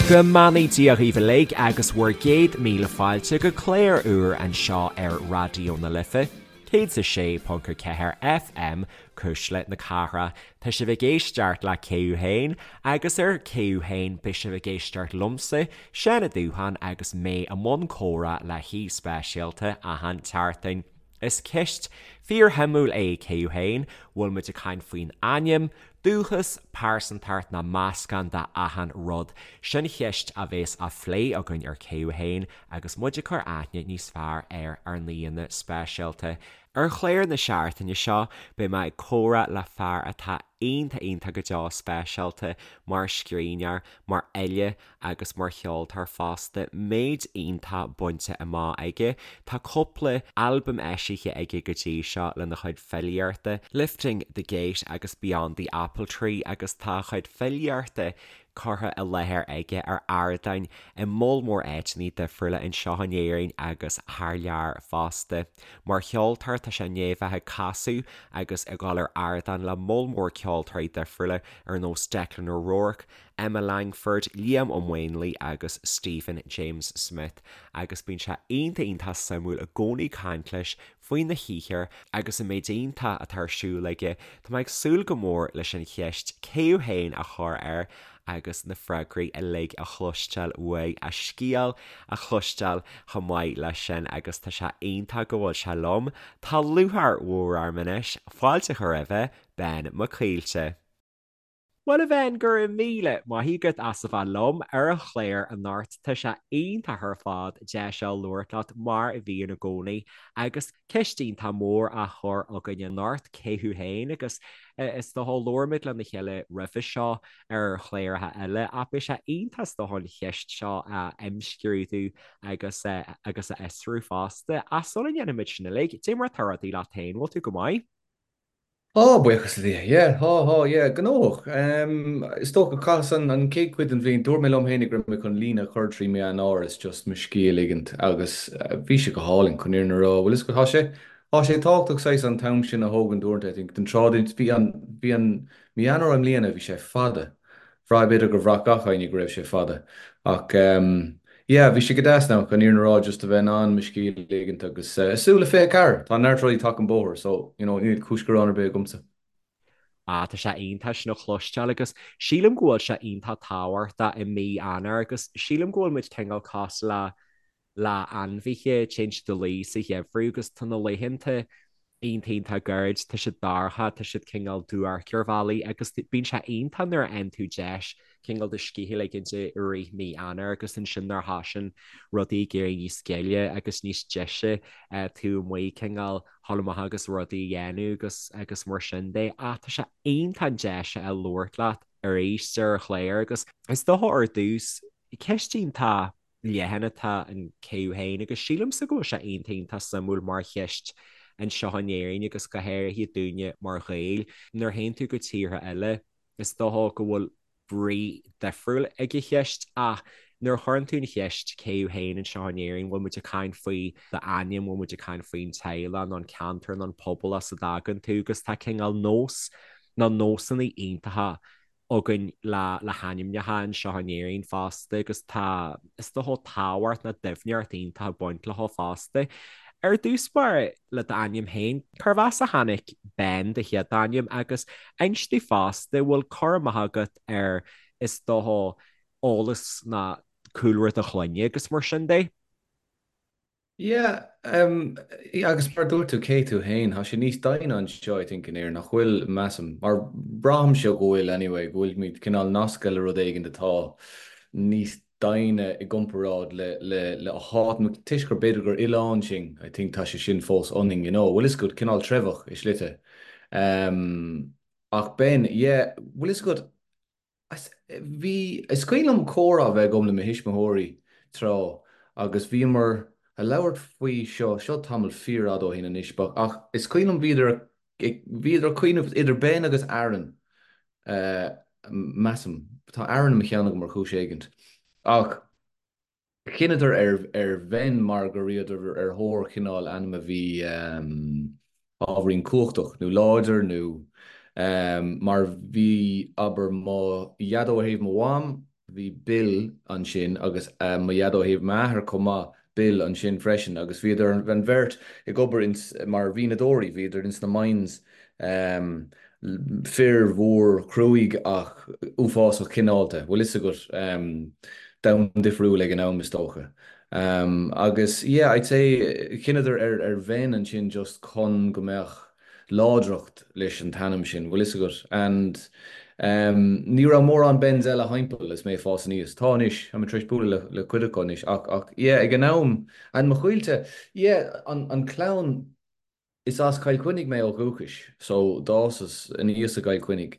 Go mbeannaí Dia dhaoibh uilig agus bhur gcéad míle fáilte go clár úr anseo ar Raidió na Life, 106.4 FM, Cuisle na Cathrach. Tá sibh ag éisteacht le Cé Thú Féin agus ar Cé Thú Féin beidh sibh ag éisteacht liomsa, Seán Ó Dúcháin agus mé i mbun comhrá le haoi speisialta achan tseachtain. Is ceist fíorshuimiúil é Cé Thú Féin, bhfuil muid ag caint faoin ainm, dúchas, pearsantacht nó meascán de achan rud? Sin cheist a bhéas á phlé againn ar Cé Thú Féin agus muid ag cur aithne níos fearr ar ár n-aíonna speisialta. Ar chlár na seachtaine seo beidh mé ag comhrá le fear atá iontach iontach go deo speisialta mar scríbhneoir, mar fhile agus mar cheoltóir fosta, méid iontach bainte amach aige. Tá cúpla albam eisithe aige go dtí seo lena chuid filíochta, Lifting the Gate agus Beyond the Apple Tree agus tá a chuid filíochta curtha i láthair aige ar ardáin i moll mór áiteanna difriúla anseo in Éirinn agus thar lear fosta. Mar cheoltóir tá sé i ndiaidh bheith ag casadh agus ag dul ar ardán le moll mór ceoltóirí difriúla ar nós Declan O'Rourke, Emma Langford, Liam Ó Maonlaí agus Stephen James Smith agus bíonn sé iontach iontach suimiúil i gcónaí caint leis faoina shaothar agus an méid iontach atá ar siúl aige. Tá mé ag súil go mór leis an cheist cé thú féin a chur air agus na freagraí uilig a chloisteáil uaidh, a scéal a chloisteáil chomh maith leis sin agus tá sé iontach go bhfuil sé liom. Tá lúcháir mhór orm anois fáilte a chur roimhe, Ben Mac Caoilte. Bhuel a Bhen, go raibh míle maith agat as a bheith liom ar an chlár anocht. Tá sé iontach ar fad deis a labhairt leat mar a bhíonn i gcónaí agus ceist iontach mór á chur againn anocht, cé thú féin? Agus is dócha labhair muid lena chéile roimhe seo ar chláracha eile ach beidh sé iontach is dócha an cheist seo a imscrúdú agus agus a fhiosrú fosta. Ach sula ndéanfaimid sin uilig, cad é mar atá rudaí leat féin, bhfuil tú go maith? Tá, buíochas le Dia. Yeah, tá, tá, yeah, gnóthach. Is dócha, chaitheas an an chéad chuid den bhliain, dúirt mé liom féinig go raibh mé chun líne a chur trí mí Eanáir is just mo scíth a ligint agus bhí sé go hálainn, chun an fhírinne a rá. Bhfuil fhios agat, tá sé, tá sé tábhachtach saghas an t-am sin a thógaint uaireanta, I think, den tráth, bhí an, bhí an mí Eanáir i mbliana, bhí sé fada. Bhraith, b'fhéidir gur bhraith gach éinne go raibh sé fada. Ach yeah, bhí sé go deas now, chun an fhírinne a rá, just a bheith in ann mo scíth a ligint agus súil le 24! Tá neart rudaí tagtha an bóthar so, you know, níl cúis gearáin ar bith agamsa. Ah, tá sé iontach sin a chloisteáil agus sílim go bhfuil sé iontach tábhachtach i mí Eanáir agus sílim go bhfuil muid cineál cosúil le le ainmhithe, téann siad a luí sa gheimhreadh agus tá na laethanta iontach iontach gairid, tá siad dorcha, tá siad cineál duairc ar bhealaí agus bíonn sé iontach nuair a fhaigheann tú deis cineál do scíth a ligint i rith mí Eanáir agus ansin nuair a thosaíonn rudaí ag éirí níos gile agus níos deise tú amuigh cineál dhul amach agus rudaí a dhéanamh agus agus mar sin de. Ach tá sé iontach an deis a labhairt leat arís ar an chlár agus is dócha ar dtús ceist iontach leathan atá in cé thú féin agus sílimse go bhfuil sé iontach iontach suimiúil mar cheist anseo in Éirinn agus go háirithe dúinne mar Ghaeil. Nuair a théann tú go tíortha eile is dócha go bhfuil brí difriúil ag an cheist ach nuair a chuireann tú an cheist cé thú féin anseo in Éirinn bhfuil muid ag caint faoi d'ainm, bhfuil muid ag caint faoin teaghlach nó an ceantar nó an pobal as a dtagann tú agus tá cineál nós nó nósanna iontacha againn le le hainmneacha anseo in Éirinn fosta agus tá, is dócha, tábhacht nó doimhneacht iontach ag baint leo fosta. Ar dtús báire, le d'ainm féin, cérbh as a tháinig Ben, do chéad ainm, agus inis domh fosta, bhfuil cur amach agat ar, is dócha, eolas nó cúlra do chlainne agus mar sin de? Yeah, agus mar a dúirt tú, cé tú féin, tá sé níos doimhne anseo I think in Éirinn, nach bhfuil, measaim, mar braithimse go bhfuil anyway, go bhfuilimid cineál nasctha le rud éigin atá níos doimhne i gcomparáid le le le háit, toisc gur b'fhéidir gur oileán sinn, I think tá sé sin fós ionainn, you know, bhfuil fhios agat, cineál treibheach i slite. Ach Ben, yeah, bhfuil fhios agat, Bhí, is cuimhin liom comhrá a bheith agam le mo thuismitheoirí tráth agus bhíomar a labhairt faoi seo, seo tamall fíorfhada ó shin anois, but ach is cuimhin liom bhíodar ag, bhíodar ag cuimhneamh idir Ben agus Aaron, measaim, tá Aaron i mo cheann agam ar chúis éigint, ach. Chinneadar ar Ben mar go rabhadar ar thóir chineál ainm a bhí ábhairín cumhachtach nó láidir nó mar bhí, abair, mo dhaideo ó thaobh mo mham. bhí Bill ansin agus mo dhaid ó thaobh m'athar chomh maith, Bill ansin freisin agus bhíodar an bheirt ag obair ins, mar mhianadóirí, bhíodar ins na mines, fir mhór chruaidh ach uafásach cineálta, bhfuil fhios agat, domhan difriúil ag an am is dócha. Agus yeah, I'd say chinneadar ar ar Ben ansin just chun go mbeadh láidreacht leis an t-ainm sin, bhfuil fhios agat, and ní raibh mórán Bens eile thimpeall is mé ag fás aníos. Tá anois, tá mé tar éis bualadh le le cuid acu anois ach ach yeah ag an am, and mo choillte, yeah an an clann, is as Cill Chainnigh mé ó dhúchais so d'fhásas aníos i gCill Chainnigh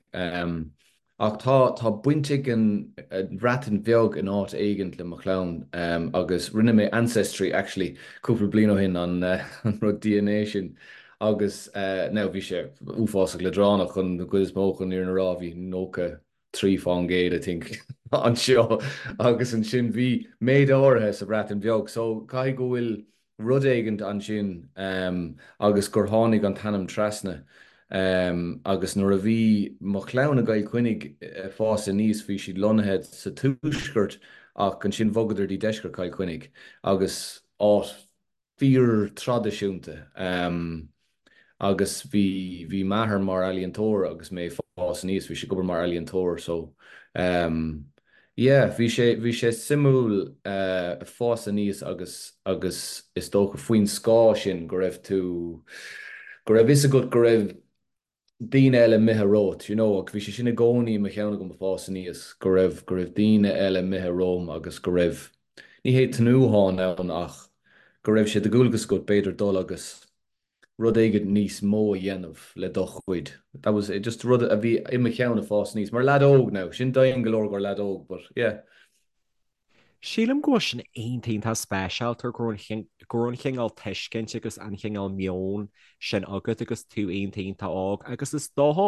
ach tá tá baint ag an Bhreatain Bheag in áit éigint le mo chlann agus rinne mé ancestry actually cúpla bliain ó shin an an rud DNA sin agus now bhí sé uafásach leadránach chun an chuid is mó chun an fhírinne a rá bhí 93% I think anseo agus ansin bhí méid áirithe sa Bhreatain Bheag so caithfidh go bhfuil rud éigint ansin agus gur tháinig an t-ainm trasna agus nuair a bhí mo chlann i gCill Chainnigh ag fás aníos bhí siad lonnaithe sa tuaisceart ach ansin bhogadar dtí deisceart Chill Chainnigh agus áit fíor-traidisiúnta agus bhí, bhí m'athair mar ealaíontóir agus mé ag fás aníos, bhí sé ag obair mar ealaíontóir so yeah, bhí sé, bhí sé suimiúil fás aníos agus, agus is dócha faoin scáth sin go raibh tú, go raibh fhios agat go raibh daoine eile imithe romhat, you know, agus bhí sé sin i gcónaí i mo cheann agam ag fás aníos, go raibh, go raibh daoine eile imithe romham agus go raibh, ní hé tnúthán ann ach go raibh sé de dhualgas agat b'fhéidir dul agus rud éigin níos mó a dhéanamh le do chuid. That was it, just rud a bhí i mo cheann ag fás aníos, mar leaid óg now, sin domhain go leor gur leaid óg, but yeah. Sílim go bhfuil sin iontach iontach speisialta go raibh an go raibh an chineál tuiscint agus an chineál meoin sin agat agus tú iontach iontach óg agus is dócha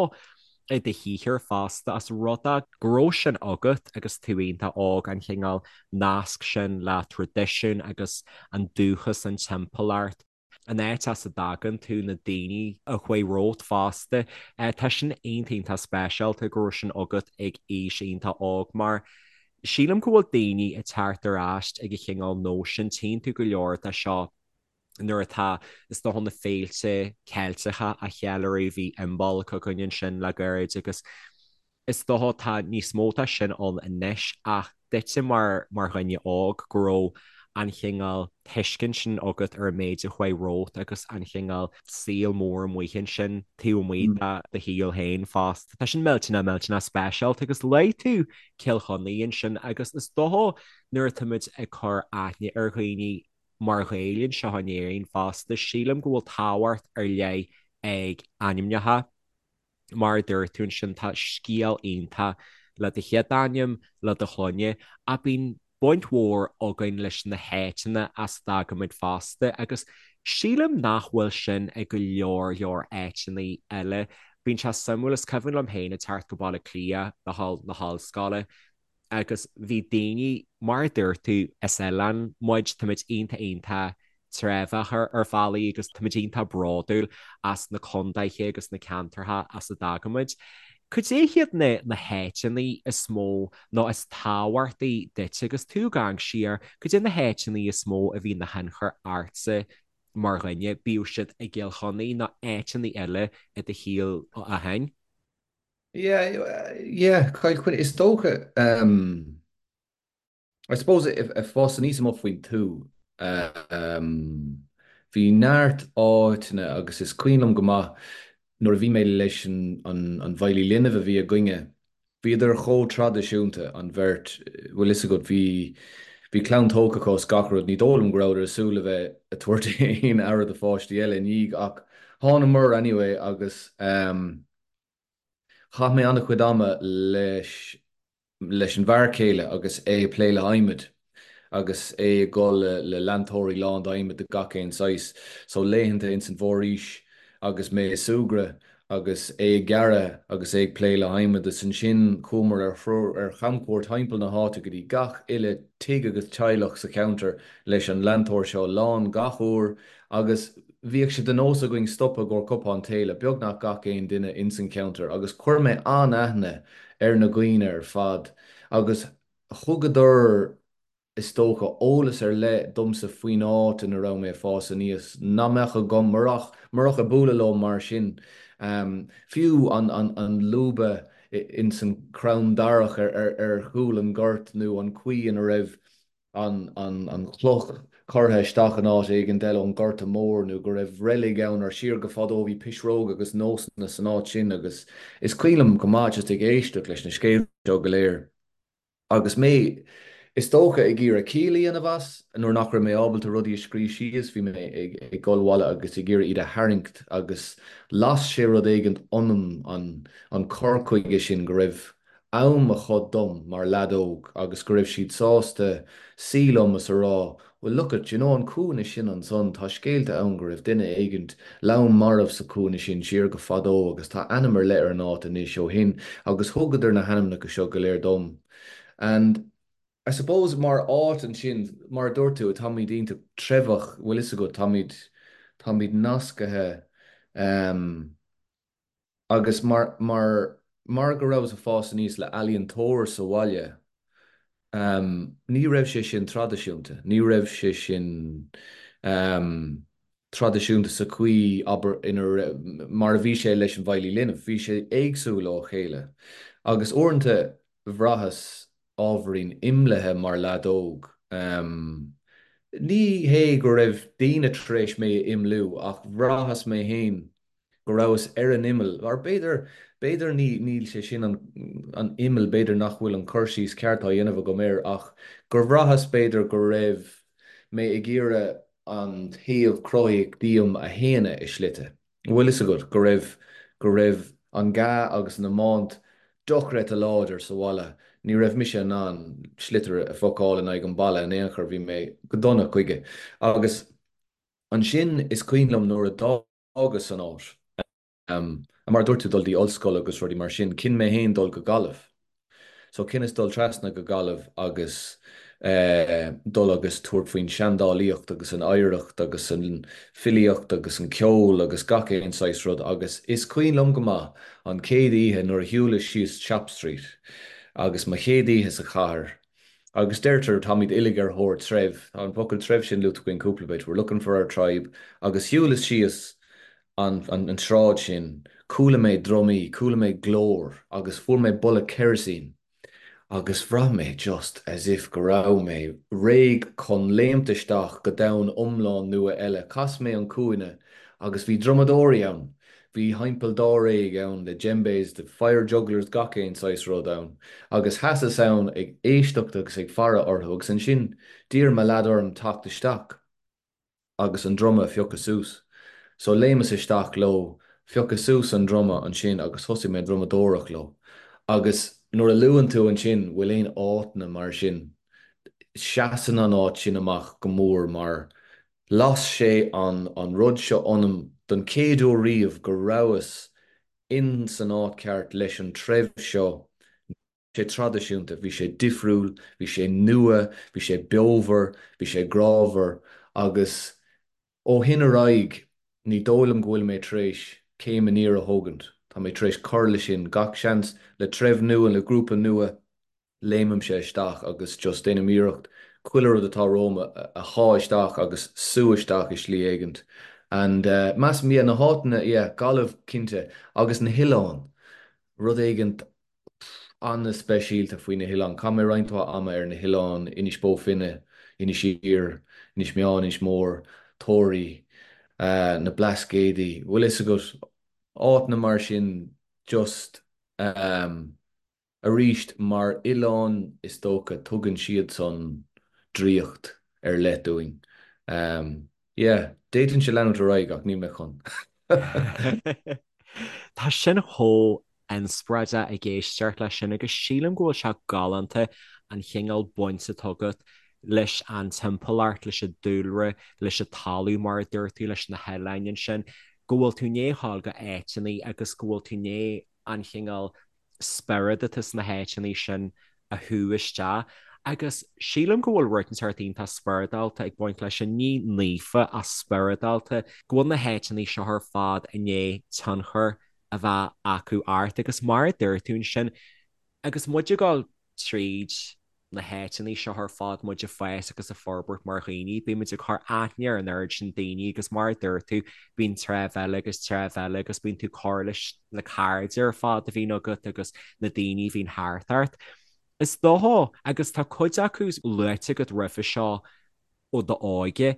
i do shaothar fosta as rud é go raibh sin agat agus tú iontach óg an chineál nasc sin le traidisiún agus an dúchas an timpeallacht. an áit as a dtagann tú, na daoine a chuaigh romhat fosta. Tá sin iontach iontach speisialta go raibh sin agat ag aois iontach óg mar sílim go bhfuil daoine ag teacht ar ais ag an chineál nós sin, tchíonn tú go leor de seo nuair atá, is dócha, na féilte Ceilteacha á cheiliúradh, bhí Imbolc againn ansin le gairid agus Is dócha tá níos mó de sin ann anois ach duitse mar mar dhuine óg go raibh an chineál tuiscint sin agat ar an méid a chuaigh romhat agus an chineál saol mór amuigh ansin taobh amuigh de do shaol féin fosta. Tá sin millteanach millteanach speisialta agus luaigh tú Cill Chainnigh ansin agus is dócha nuair atáimid ag cur aithne ar dhaoine mar Ghaeil anseo in Éirinn fosta sílim go bhfuil tábhacht ar leith ag ainmneacha. Mar a dúirt tú ansin, tá scéal iontach le do chéad ainm, le do shloinne, ach bíonn baint mhór againn leis na háiteanna as a dtagaimid fosta agus sílim nach bhfuil sin ag go leor leor áiteanna eile. Bíonn sé suimiúil, is cuimhin liom féin ag teacht go Baile Átha Cliath le dhul na hollscoile agus bhí daoine, mar a dúirt tú, is oileán muid, táimid iontach iontach treibheach ar bhealaí agus táimid iontach bródúil as na contaetha agus na ceantartha as a dtagaimid. Cad é hiad na na háiteanna is mó nó is tábhachtaí duit agus tú ag amharc siar, cad é na háiteanna is mó a bhí ina thionchar ortsa mar dhuine, bíodh siad i gCill Chainnigh nó áiteanna eile i do shaol ó shin? Yeah, yeah, Cill Chainnigh, is dócha, um, I suppose ag fás aníos amuigh faoin tuath, um, bhí neart áiteanna agus is cuimhin liom go maith nuair a bhí mé leis an, an, an bhfeighlí linbh a bhí againne, bhíodar chomh traidisiúnta, an bheirt, bhfuil fhios agat, bhí, bhí clann tógtha acu is gach rud, ní dóigh liom go rabhadar ag súil le bheith ag tabhairt aon aire do pháistí eile i ndiaidh ach thánamar anyway agus, um, Chaith mé an-chuid ama leis leis an bhfear céile agus é ag plé le hadhmad agus é ag dul le le leantóirí lán d'adhmad de gach aon saghas. So laethanta ins an bhforaois agus mé ag súgradh agus é ag gearradh agus é ag plé le hadhmad is ansin chuamar ar threoir ar chamchuairt thimpeall na háite go dtí gach uile tigh agus teaghlach sa cheantar leis an leantóir seo lán gach uair agus bhíodh sé de nós againn stopadh i gcomhair cupán tae le beagnach gach aon duine ins an cheantar agus chuir mé an-aithne ar na dhaoine ar fad agus. Thugadar, is dócha, eolas ar leith domsa faoin áit ina raibh mé ag fás aníos nach mbeadh agam murach, murach ag bualadh leo mar sin. Fiú an, an, an lúba ins an crann darach ar, ar, ar chúl an ghoirt nó an chaoi ina raibh an, an, an chloch curtha isteach in áit éigin eile ón Ghorta Mór nó go raibh reilig ann or siar go fadó bhí pisreog agus nósanna san áit sin agus is cuimhin liom go maith just ag éisteacht leis na scéalta seo go léir. Agus mé, is dócha, ag iarraidh ciall a dhéanamh as, nuair nach raibh mé ábalta rudaí a scríobh síos, bhí mé ag dul abhaile agus ag iarraidh iad a tharraingt agus las sé rud éigint ionam, an cur chuige sin go raibh am acu dom mar leaid óg agus go raibh siad sásta suí liom is a rá Well look at, you know an cúinne sin ansan, tá scéalta ann go raibh duine éigint lom marbh sa chúinne sin siar go fadó agus tá ainm ar leith ar an áit anois ó shin agus thugadar na hainmneacha seo go léir dom. And I suppose mar áit ansin, mar a dúirt tú, táimid iontach treibheach, bhfuil fhios agat, táimid, táimid nascaithe um, Agus mar, mar, mar go rabhas ag fás aníos le ealaíontóir sa bhaile, ehm, ní raibh sé sin traidisiúnta, ní raibh sé sin, ehm, traidisiúnta sa chaoi, abair, ina raibh, mar a bhí sé leis an bhfeighlí linbh, bhí sé éagsúil ó chéile. Agus uaireanta bhraitheas ábhairín imeallaithe mar leaid óg. Ehm, ní hé go raibh daoine tar éis mé a imeallú ach bhraitheas mé féin go rabhas ar an imeall, or b'fhéidir, b'fhéidir ní, níl sé sin an, an imeall, b'fhéidir nach bhfuil an cur síos ceart á dhéanamh agam air ach gur bhraitheas b'fhéidir go raibh mé ag iarraidh an taobh cruthaíoch díom a shéanadh i slite. Bhfuil fhios agat, go raibh, go raibh an gá agus an iomáint dochreidte láidir sa bhaile, ní raibh mise in ann sliotar a phocáil in aghaidh an balla in aon chor, bhí mé go dona chuige. Agus ansin is cuimhin liom nuair a d'fhágas an áit, mar a dúirt tú, dul dtí ollscoil agus rudaí mar sin, chinn mé féin dul go Gaillimh. So chinneas dul trasna go Gaillimh agus dul agus tabhairt faoin seandálaíocht agus an oidhreacht agus an filíocht agus an ceol agus gach aon saghas rud agus is cuimhin liom go maith an chéad oíche nuair a shiúlas síos Shop Street agus mo chéad oíche sa chathair agus deirtear táimid uilig ar thóir treibh, tá an focal treibh sin luaite againn cúpla bit, we're looking for our tribe agus shiúlas síos an an tsráid sin, chuala mé drumaí, chuala mé glór agus fuair mé boladh kerosene agus bhraith mé just as if go raibh mé réidh chun léimt isteach go domhan iomlán nua eile. Chas mé an cúinne agus bhí drumadóirí ann, bhí thimpeall dáréag ann le djembes, the fire jugglers, gach aon saghas rud ann agus sheasas ann ag éisteacht agus ag faire orthu agus ansin d'iarr mo leaid orm teacht isteach. agus an druma a phiocadh suas. So léimeas isteach leo, phiocas suas an druma ansin agus thosaigh mé ag drumadóireacht leo. Agus nuair a luann tú ansin bhfuil aon áiteanna mar sin, seasann an áit sin amach go mór mar las sé an an rud seo ionam don chéad uair riamh go rabhas in san áit ceart leis an treibh seo, sé traidisiúnta, bhí sé difriúil, bhí sé nua, bhí sé beomhar, bhí sé grámhar agus ó shin ar aghaidh ní dóigh liom go bhfuil mé tar éis céim aniar a thógaint, tá mé tar éis cur leis sin, gach seans le treibh nua, le grúpa nua, léimimse isteach agus just déanaim iarracht chuile rud atá romham a shá isteach agus sú isteach i slí éigint and measaim, yeah, na háiteanna, yeah, Gaillimh cinnte agus na hoileáin, rud éigint an-speisialta faoi na hoileáin. Chaith mé roinnt mhaith ama ar na hoileáin, Inis Bó Finne, Inis Oírr, Inis Meáin, Inis Mór, Toraí, na Blascaodaí, bhfuil fhios agat, áiteanna mar sin just arís mar oileáin is dócha tugann siadsan draíocht ar leith dúinn. Yeah, d'fhéadfainnse leanúint ar aghaidh ach níl mé chun. Tá sin chomh inspioráideach ag éisteacht leis sin agus sílim go bhfuil sé galánta an chineál baint atá agat leis an timpeallacht, leis an dúlra, leis an talamh mar a dúirt tú, leis na hoileáin ansin, go bhfuil tú i ndiaidh a ghabháil go áiteanna agus go bhfuil tú i ndiaidh an chineál spiorad atá sna háiteanna sin a shú isteach. Agus sílim go bhfuil rud inteacht iontach spioradálta ag baint leis sin, ní naofa ach spioradálta, go bhfuil na háiteanna seo ar fad i ndiaidh tionchar a bheith acu ort. Agus mar a dúirt tú ansin, agus muid ag dul tríd. na háiteanna seo ar fad, muid ag fás agus ag forbairt mar dhaoine, bíonn muid ag cur aithne ar an oiread sin daoine agus mar a dúirt tú, bíonn treibh eile agus treibh eile agus bíonn tú ag cur leis na cairde ar fad a bhíonn agat agus na daoine a bhíonn thart ort. Is dócha, agus tá cuid acu luaite agat roimhe seo ó d'óige,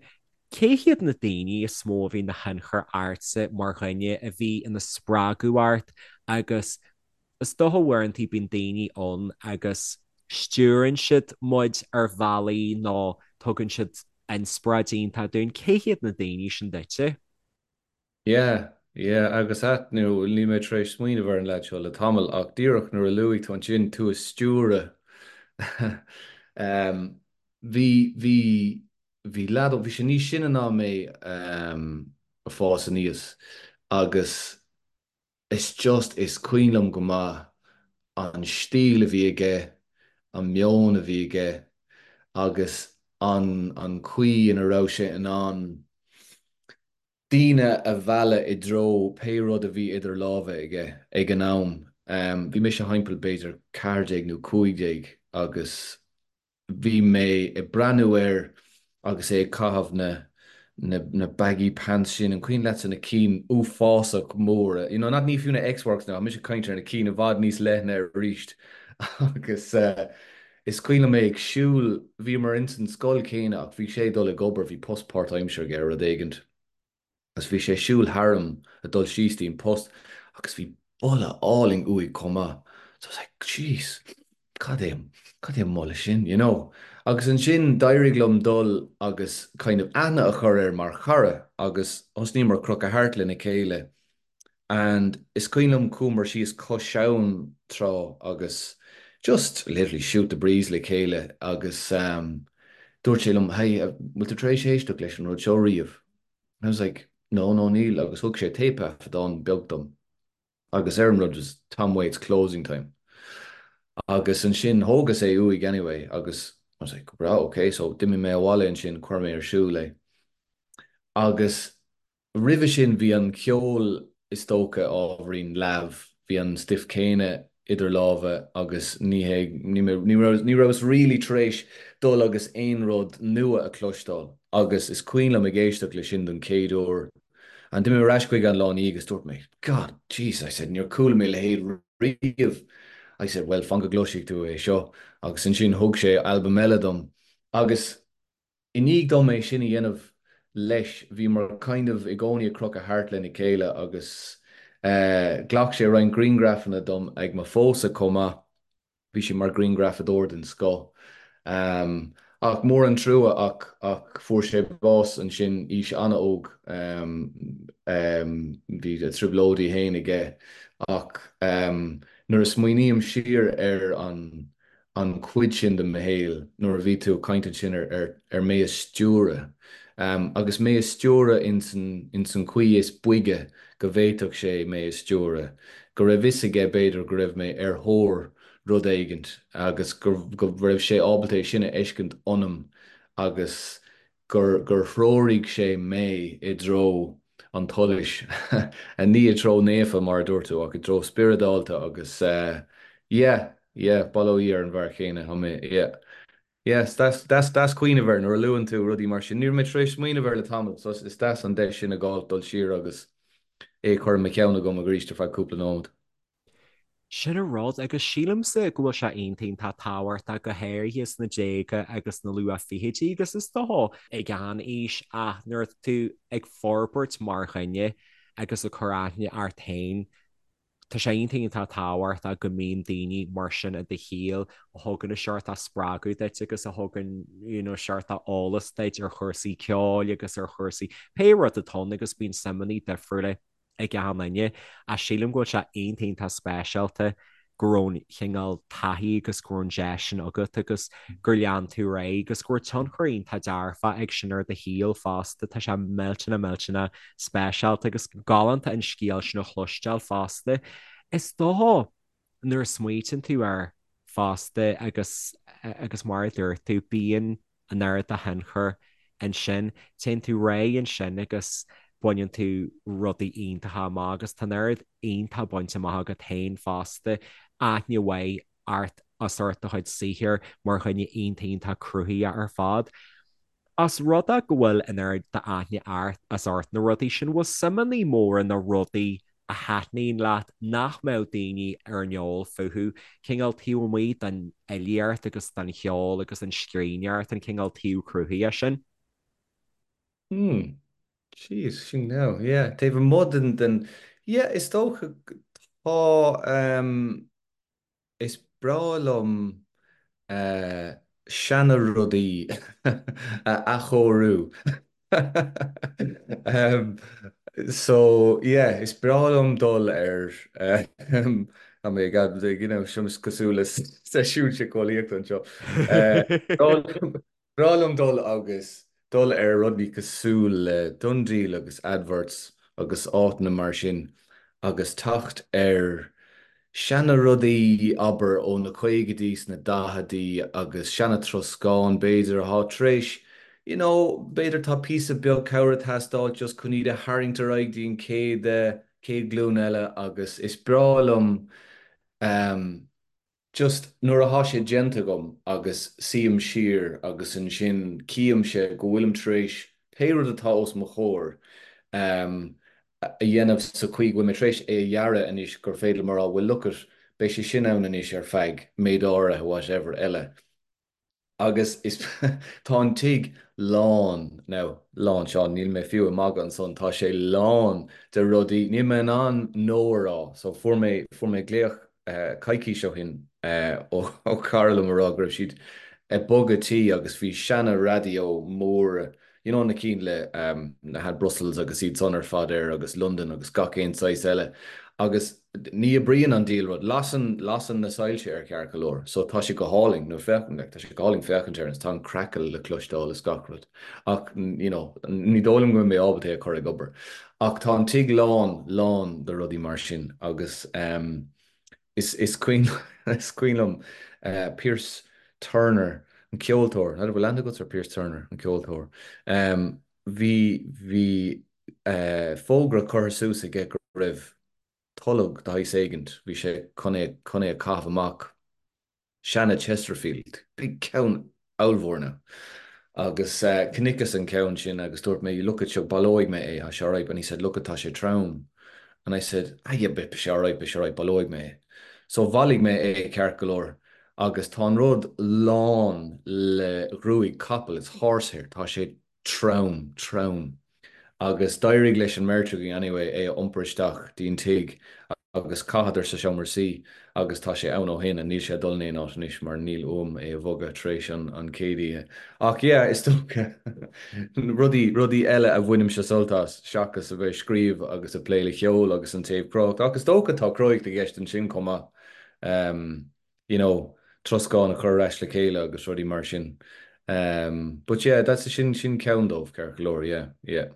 cé hiad na daoine is mó a bhí ina thionchar ortsa mar dhuine, a bhí ina spreagadh ort agus Is dócha uaireanta bíonn daoine ann agus stiúrann siad muid ar bhealaí nó tugann siad inspioráid iontach dúinn. Cé hiad na daoine sin duitse? Yeah, yeah, agus at, nó níl mé tar éis smaoineamh ar an leaid seo le tamall ach díreach nuair a luaigh tú ansin tú a stiúradh em bhí, bhí, bhí leaid, bhí sé níos sine ná mé em ag fás aníos agus Is just, is cuimhin liom go maith an stíl a bhí aige, an meon a bhí aige agus an an chaoi ina raibh sé in ann daoine a mhealladh i dtreo pé rud a bhí idir lámha aige ag an am. Bhí mise thimpeall b'fhéidir 14 nó 15 agus Bhí mé ag breathnú air agus é ag caitheamh na na na baggy pants sin, an cuimhin leatsa na cinn uafásach móra, you know, not ní fiú na X-Works now, mise ag caint ar na cinn i bhfad níos leithne arís agus eh is cuimhin liom é ag siúl, bhíomar ins an scoil céanna ach bhí sé ag dul ag obair, bhí post páirtaimseartha aige ar rud éigint. agus bhí sé ag siúl tharam ag dul síos dtí'n post agus bhí boladh álainn uaidh chomh maith so I was like jeez cad é cad é an boladh sin you know agus ansin d'éirigh liom dul agus kind of aithne a chur air mar chara agus thosnaíomar crochadh thart lena chéile and is cuimhin liom chuamar síos cois abhann tráth agus just literally shoot the breeze le chéile agus um, dúirt sé liom hey bhfuil tú tar éis éisteacht leis an rud seo riamh? I was like, no, no, níl, agus thug sé téipthaifeadán beag dom agus ar an rud was Tom Waits Closing Time. Agus ansin thógas é uaidh anyway agus I was like, right, okay, so d'imigh mé abhaile ansin, chuir mé ar siúl é. Agus roimhe sin bhí an ceol is dócha ábhairín leamh, bhí an stuif céanna idir lámha agus ní hé, ní ní raibh, ní rabhas really tar éis dul agus aon rud nua a chloisteáil agus is cuimhin liom ag éisteacht le sin don chéad uair and d'imigh mé ar ais chuige an lá ina dhiaidh agus dúirt mé God, jeez, I said, níor chuala mé a leithéid riamh. I said, well, fan go gcloisfidh tú é seo agus ansin thug sé albam eile dom agus I ndiaidh dom é sin a dhéanamh leis, bhíomar kind of i gcónaí ag crochadh thart lena chéile agus ghlac sé roinnt grianghrafanna dom ag mo phósadh chomh maith, bhí sé mar ghrianghrafadóir den scoth. Ach mór an trua ach ach fuair sé bás ansin aois an-óg, bhí a trioblóidí féin aige ach nuair a smaoiním siar ar an an chuid sin de mo shaol nuair a bhí tú ag caint ansin ar ar ar mé a stiúradh agus mé a stiúradh ins an ins an chaoi is boige go bhféadfadh sé mé a stiúradh, go raibh fhios aige b'fhéidir go raibh mé ar thóir rud éigint agus go go raibh sé ábalta é sin a fheiscint ionam agus gur gur threoraigh sé mé i dtreo an tsolais, ní i dtreo naofa mar a dúirt tú, ach i dtreo spioradálta agus yeah, yeah, bail ó Dhia ar an bhfear chéanna, tá mé, yeah. Yeah, is deas, deas, deas cuimhneamh air nuair a luann tú rudaí mar sin. Ní raibh mé tar éis smaoineamh air le tamall, so is deas an deis sin a fháil dul siar agus é a chur i mo cheann agam arís ar feadh cúpla nóiméad. Sin an rud, agus sílimse go bhfuil sé iontach iontach tábhachtach, go háirithe sna déaga agus sna luath-fhichidí agus is dócha ag aon aois ach nuair atá tú ag forbairt mar dhuine agus ag cur aithne ort féin, tá sé iontach iontach tábhachtach go mbíonn daoine mar sin i do shaol a thugann an seort spreagadh duit agus a thugann you know seort eolas duit ar chúrsaí ceoil agus ar chúrsaí pé rud atá ann agus bíonn suimeanna difriúla ag achan duine, ach sílim go bhfuil sé iontach iontach speisialta go raibh an chineál taithí agus go raibh an deis sin agat agus gur lean tú ar aghaidh agus go raibh tionchar iontach dearfach ag sin ar do shaol fosta. Tá sé millteanach millteanach speisialta agus galánta an scéal sin a chloisteáil fosta. Is dócha nuair a smaoitíonn tú air fosta agus agus mar a dúirt tú, bíonn an oiread de thionchar ansin. Téann tú ar aghaidh ansin agus baineann tú rudaí iontacha amach agus tá an oiread iontach bainte amach agat féin fosta, aithne mhaith ort As ucht do chuid saothair mar dhuine iontach iontach cruthaitheach ar fad. Os rud é go bhfuil an oiread d'aithne ort as ucht na rudaí sin, bhfuil suimeanna móra nó rudaí a thaitníonn leat nach mbeadh daoine ar an eol fúthu, cineál taobh amuigh den fhilíocht agus den cheol agus an scríbhneoireacht, an cineál taobh cruthaitheach sin? Hmm. Jeez, sin now, yeah. Taobh amuigh den, den, yeah, is dócha tá, ehm, Is breá liom seana-rudaí a athchóiriú. So, yeah, is breá liom dul ar, tá mé ag, you know, seo cosúil le seisiún síceolaíochta anseo. Breá liom dul agus dul ar rudaí cosúil le DoneDeal agus adverts agus áiteanna mar sin agus teacht ar seana rudaí, abair, ó na caogaidí 's na daicheadaí agus seana troscán b'fhéidir atá tar éis, you know, b'fhéidir tá píosa beag cabhair ag teastáil just chun iad a tharraingt ar aghaidh dtí an chéad, chéad ghlúin eile agus is breá liom ehm. Just nuair athá sé déanta agam agus suím siar agus ansin címse go bhfuilim tar éis pé rud atá os mo chomhair a dhéanamh sa chaoi go bhfuil mé tar éis é a dhearadh anois gur féidir liom a rá well look it, beidh sé sin ann anois ar feadh méid áirithe whatever eile. Agus is tá an tigh lán, now, lán, Seán, níl mé fiú ag magadh ansan, tá sé lán de rudaí, níl mé in ann no a rá. So fuair mé, fuair mé glaoch coicís ó shin ó chara liom a rá go raibh siad ag bogadh tí agus bhí seana raidió mór, you know na cinn le na had Brussels agus iad san ar fad air agus London agus gach aon saghas eile agus ní oibríonn an diabhal rud, lasann, lasann na soilse air ceart go leor so tá sé go hálainn nó féach, like tá sé go hálainn féachaint air agus tá an crackle le cloisteáil is gach rud ach you know ní dóigh liom go mbeidh mé ábalta é a chur ag obair ach tá an tigh lán, lán de rudaí mar sin agus ehm Is is cuimhin is cuimhin liom Pierce Turner, an ceoltóir, n'fheadar bhfuil aithne agat ar Pierce Turner, an ceoltóir. Bhí bhí fógra curtha suas aige go raibh tolg de shaghas éigint, bhí sé chun é chun é a chaitheamh amach. Seana Chesterfield, big ceann ollmhór now. Agus chonaiceas an ceann sin agus dúirt mé look it seo baileoidh mé é, tá sé alright and he said look it tá sé trom and I said ah yeah beidh sé alright, beidh sé alright, baileoidh mé é. So bhailigh mé é ceart go leor agus tá an rud lán le gruaig capaill, it's horsehair, tá sé trom, trom. Agus d'éirigh leis an mbeirt againn anyway é a iompar isteach dtí'n tigh agus chaitheadar sa seomra suí agus tá sé ann ó shin and níl sé ag dul in aon áit anois mar níl uaim é a bhogadh tar éis an an chéad oíche. Ach yeah, is dócha rudaí, rudaí eile a bhainimse sult as seachas a bheith ag scríobh agus ag plé le ceol agus an taobh cruthaitheach. Ach is dócha tá cruthaitheacht i gceist ansin chomh maith. Um. you know, troscán a chur ar ais le chéile agus rudaí mar sin. Um, but yeah, that's sin sin ceann dóibh, ceart go leor, yeah, yeah.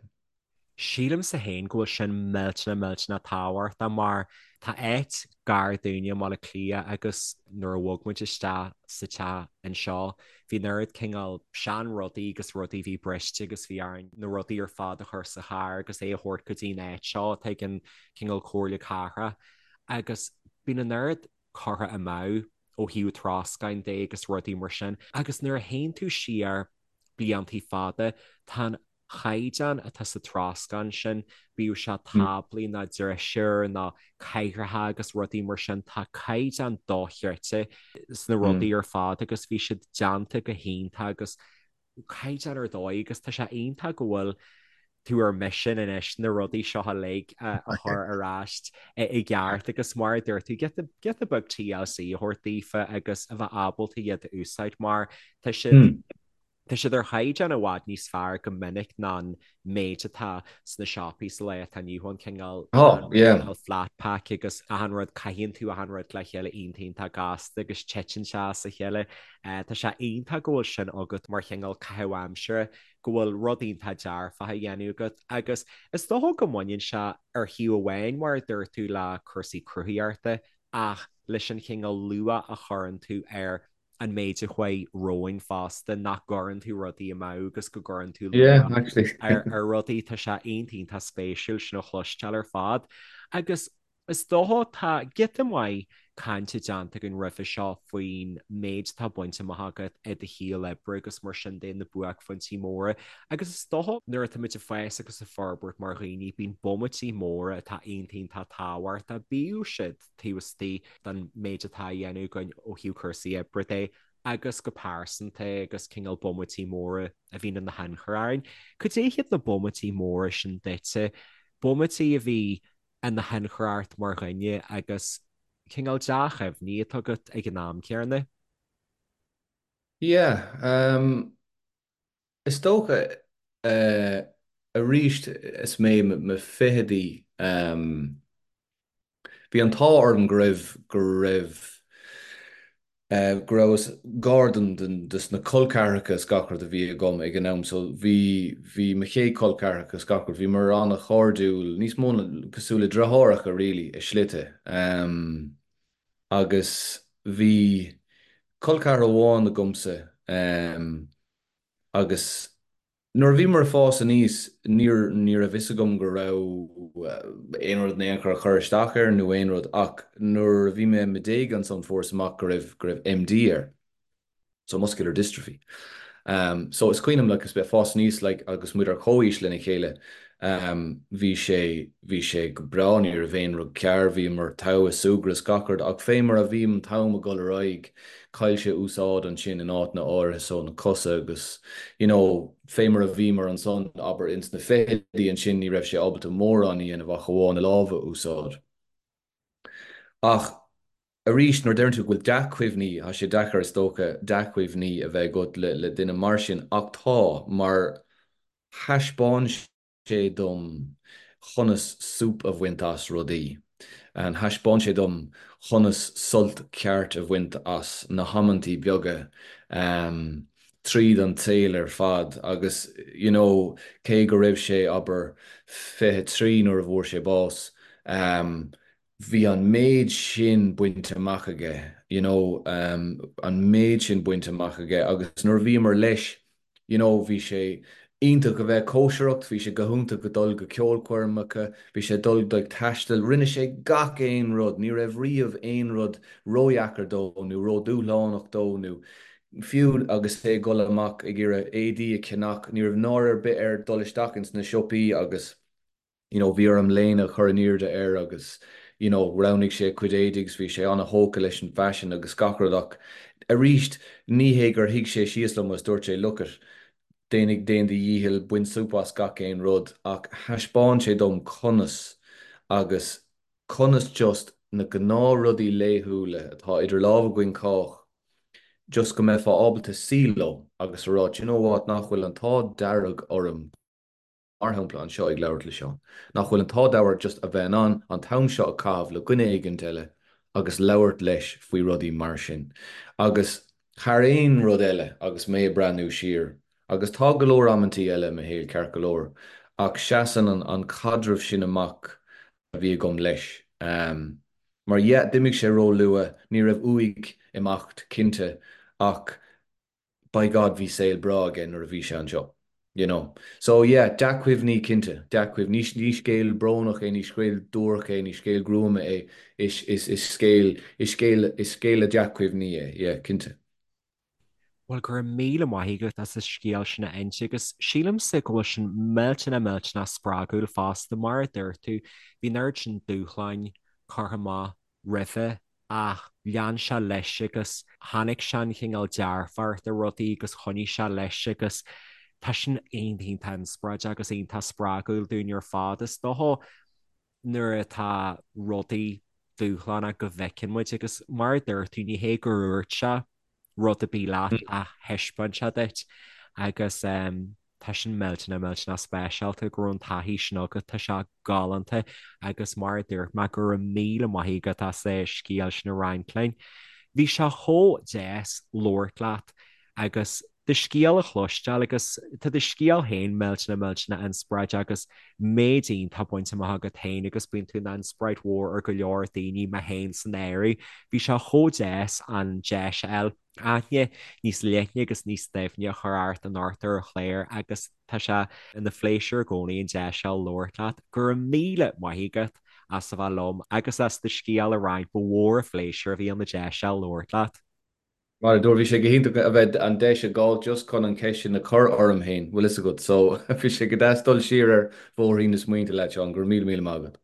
Sílimse féin go bhfuil sin millteanach millteanach tábhachtach mar tá áit gar dúinne i mBaile Átha Cliath agus nuair a bhog muid isteach sa teach anseo bhí an oiread cineál sean rudaí agus rudaí a bhí briste agus bhí orainn na rudaí ar fad a chur sa charr agus é a thabhairt go dtí an áit seo atá ag an cineál Comhairle Cathrach agus bíonn an oiread curtha amú ó thaobh troscáin de agus rudaí mar sin agus nuair a théann tú siar bliantaí fada tá an chaighdeán atá sa troscán sin, bíodh sé táblaí nó drisiúir nó cathaoireacha agus rudaí mar sin, tá caighdeán dochreidte sna rudaí ar fad agus bhí siad déanta go hiontach agus caighdeán ar dóigh agus tá sé iontach go bhfuil tú ar misean anois na rudaí seo uilig a chur ar ais i gceart agus mar a dúirt tú giota giota beag TLC a thabhairt daofa agus a bheith ábalta iad a úsáid mar tá siad tá siad ar chaighdeán i bhfad níos fearr go minic ná an méid atá sna siopaí sa lá atá inniu ann cineál Oh, yeah. cineál flat pack agus achan rud caitheann tú achan rud le chéile iontach iontach gasta agus titeann sé as a chéile. Tá sé iontach go bhfuil sin agat mar chineál caitheamh aimsire, go bhfuil rud iontach dearfach á dhéanamh agat agus is dócha go mbaineann sé ar thaobh amháin mar a dúirt tú le cúrsaí cruthaitheachta ach leis an chineál luach a chuireann tú ar an méid a chuaigh romhainn fosta, nach gcuireann tú rudaí amú agus go gcuireann tú Yeah, luach actually. ar ar rudaí, tá sé iontach iontach spéisiúil sin a chloisteáil ar fad. Agus Is dócha tá giota maith cainte déanta againn roimhe seo faoin méid atá bainte amach agat i do shaol oibre agus mar sin de, na buaicphointí móra. Agus is dócha nuair atá muid ag fás agus ag forbairt mar dhaoine, bíonn bomaití móra atá iontach iontach tábhachtach, bíodh siad taobh istigh den méid atá á dhéanamh againn ó thaobh cúrsaí oibre de agus go pearsanta agus cineál bomaití móra a bhíonn ina thionchar orainn. Cad é hiad na bomaití móra sin duitse, bomaití a bhí ina thionchar ort mar dhuine agus cineál dea-chuimhní atá agat ag an am céanna? Yeah, um, is dócha, eh, arís is mé i mo fichidí, um, bhí an t-ádh orm go raibh, go raibh, go rabhas gar don, dos na col ceathracha is gach rud a bhí agam ag an am so bhí, bhí mo chéad col ceathracha is gach rud, bhíomar an-chairdiúil, níos mó ná, cosúil le deartháireacha really i slite. Agus bhí col ceathrar amháin agamsa agus, Nuair a bhíomar ag fás aníos, níor, ní raibh fhios agam go raibh aon rud in aon chor ag cur isteach air nó aon rud ach nuair a bhí mé i mo dhéaga ansan fuaireas amach go raibh, go raibh MD air, so muscular dystrophy. So is cuimhin liom like is mé ag fás aníos like agus muid ar comhaois lena chéile, bhí sé, bhí sé go breá, ní raibh aon rud cearr, bhíomar togha ag súgradh is gach rud ach fé mar a bhí an t-am ag dul ar aghaidh, chaill sé úsáid ansin in áiteanna áirithe so na cosa agus you know fé mar a bhíomar ansan abair ins na fichidí ansin ní raibh sé ábalta mórán a dhéanamh ach amháin a lámha a úsáid. Ach arís nuair a deireann tú go bhfuil dea-chuimhní, tá sé deacair is dócha dea-chuimhní a bheith agat le le duine mar sin ach tá mar thaispeáin sé dom chonas súp a bhaint as rudaí. Thaispeáin sé dom chonas sult ceart a bhaint as na hamantaí beaga tríd an tsaol ar fad agus you know cé go raibh sé, abair, 23 nuair a bhfuair sé bás, bhí an méid sin bainte amach aige, you know, an méid sin bainte amach aige agus nuair a bhíomar leis, you know, bhí sé iontach a bheith ag cóisireacht, bhí sé go hiontach ag dul go ceolchoirmeacha, bhí sé ag dul ag taisteal, rinne sé gach aon rud, ní raibh riamh aon rud ródheacair dó nó ródhúshlánach dó nó fiú agus é ag dul amach ag iarraidh éadaí a cheannach, ní raibh náire ar bith air dul isteach ins na siopaí agus. you know bhí orm léine a chur in airde air agus you know roghnaigh sé a chuid éadaí agus bhí sé an-thógtha leis an bhfaisean agus gach rud ach arís ní hé gur shuigh sé síos liom agus dúirt sé look it déan déan do dhícheall bain súp as gach aon rud ach thaispeáin sé dom conas agus conas just na gnáthrudaí laethúla atá idir lámha againn chách just go mbeifeá ábalta suí leo agus a rá do you know what nach bhfuil an t-ádh dearg orm mar shampla, anseo ag labhairt le Seán, nach bhfuil an t-ádh dearg just a bheith in ann an t-am seo a chaitheamh le dhuine éigint eile agus labhairt leis faoi rudaí mar sin. Agus thar aon rud eile, agus mé ag breathnú siar, agus tá go leor amantaí eile i mo shaol, ceart go leor, ach seasann an an caidreamh sin amach a bhí agam leis. Mar yeah, d'imigh sé ró-luath, ní raibh uaidh imeacht, cinnte, ach by God bhí saol breá aige nuair a bhí sé anseo, you know. So yeah, dea-chuimhní cinnte, dea-chuimhní. Ní scéal brónach é, ní scéal duairc é, ní scéal gruama é, is, is, is scéal, is scéal, is scéal le dea-chuimhní é, yeah, cinnte. Bhuel, go raibh míle maith agat as an scéal sin a inse agus sílimse go bhfuil sin millteanach millteanach spreagúil fosta, mar a dúirt tú, bhí an oiread sin dúshláin curtha amach roimhe ach lean sé leis agus tháinig sé an chineál dearfacht i rudaí agus choinnigh sé leis agus tá sin iontach iontach inspioráideach agus iontach spreagúil dúinn ar fad. Is dócha nuair atá rudaí dúshlánach go bhfeiceann muid agus mar a dúirt tú ní hé gur dhúirt sé rud ar bith leat ach thaispeáin sé duit agus tá sin millteanach millteanach speisialta go raibh an taithí sin agat, tá sé galánta agus mar a dúirt mé go raibh míle maith agat as an scéal sin a roinnt linn. Bhí sé chomh deas labhairt leat agus do scéal a chloisteáil agus tá do scéal féin millteanach millteanach inspioráideach agus méid iontach bainte amach agat féin agus bíonn tú ina inspioráid mhór ar go leor daoine, mé féin san áireamh. Bhí sé chomh deas an deis a fháil aithne níos leithne agus níos doimhne a chur ort anocht ar an chlár agus tá sé ina phléisiúr i gcónaí an deis seo labhairt leat. Go raibh míle maith agat. as a bheith liom agus as do scéal a roinnt. Ba mhór an phléisiúr a bhí ann an deis seo labhairt leat. Mar a dúirt, bhí sé go hiontach a bheith an deis a fháil just chun an cheist sin a chur orm féin, bhfuil fhios agat. So, bhí sé go deas dul siar ar bhóithrín na smaointe leat, Seán. Go raibh míle míle maith agat.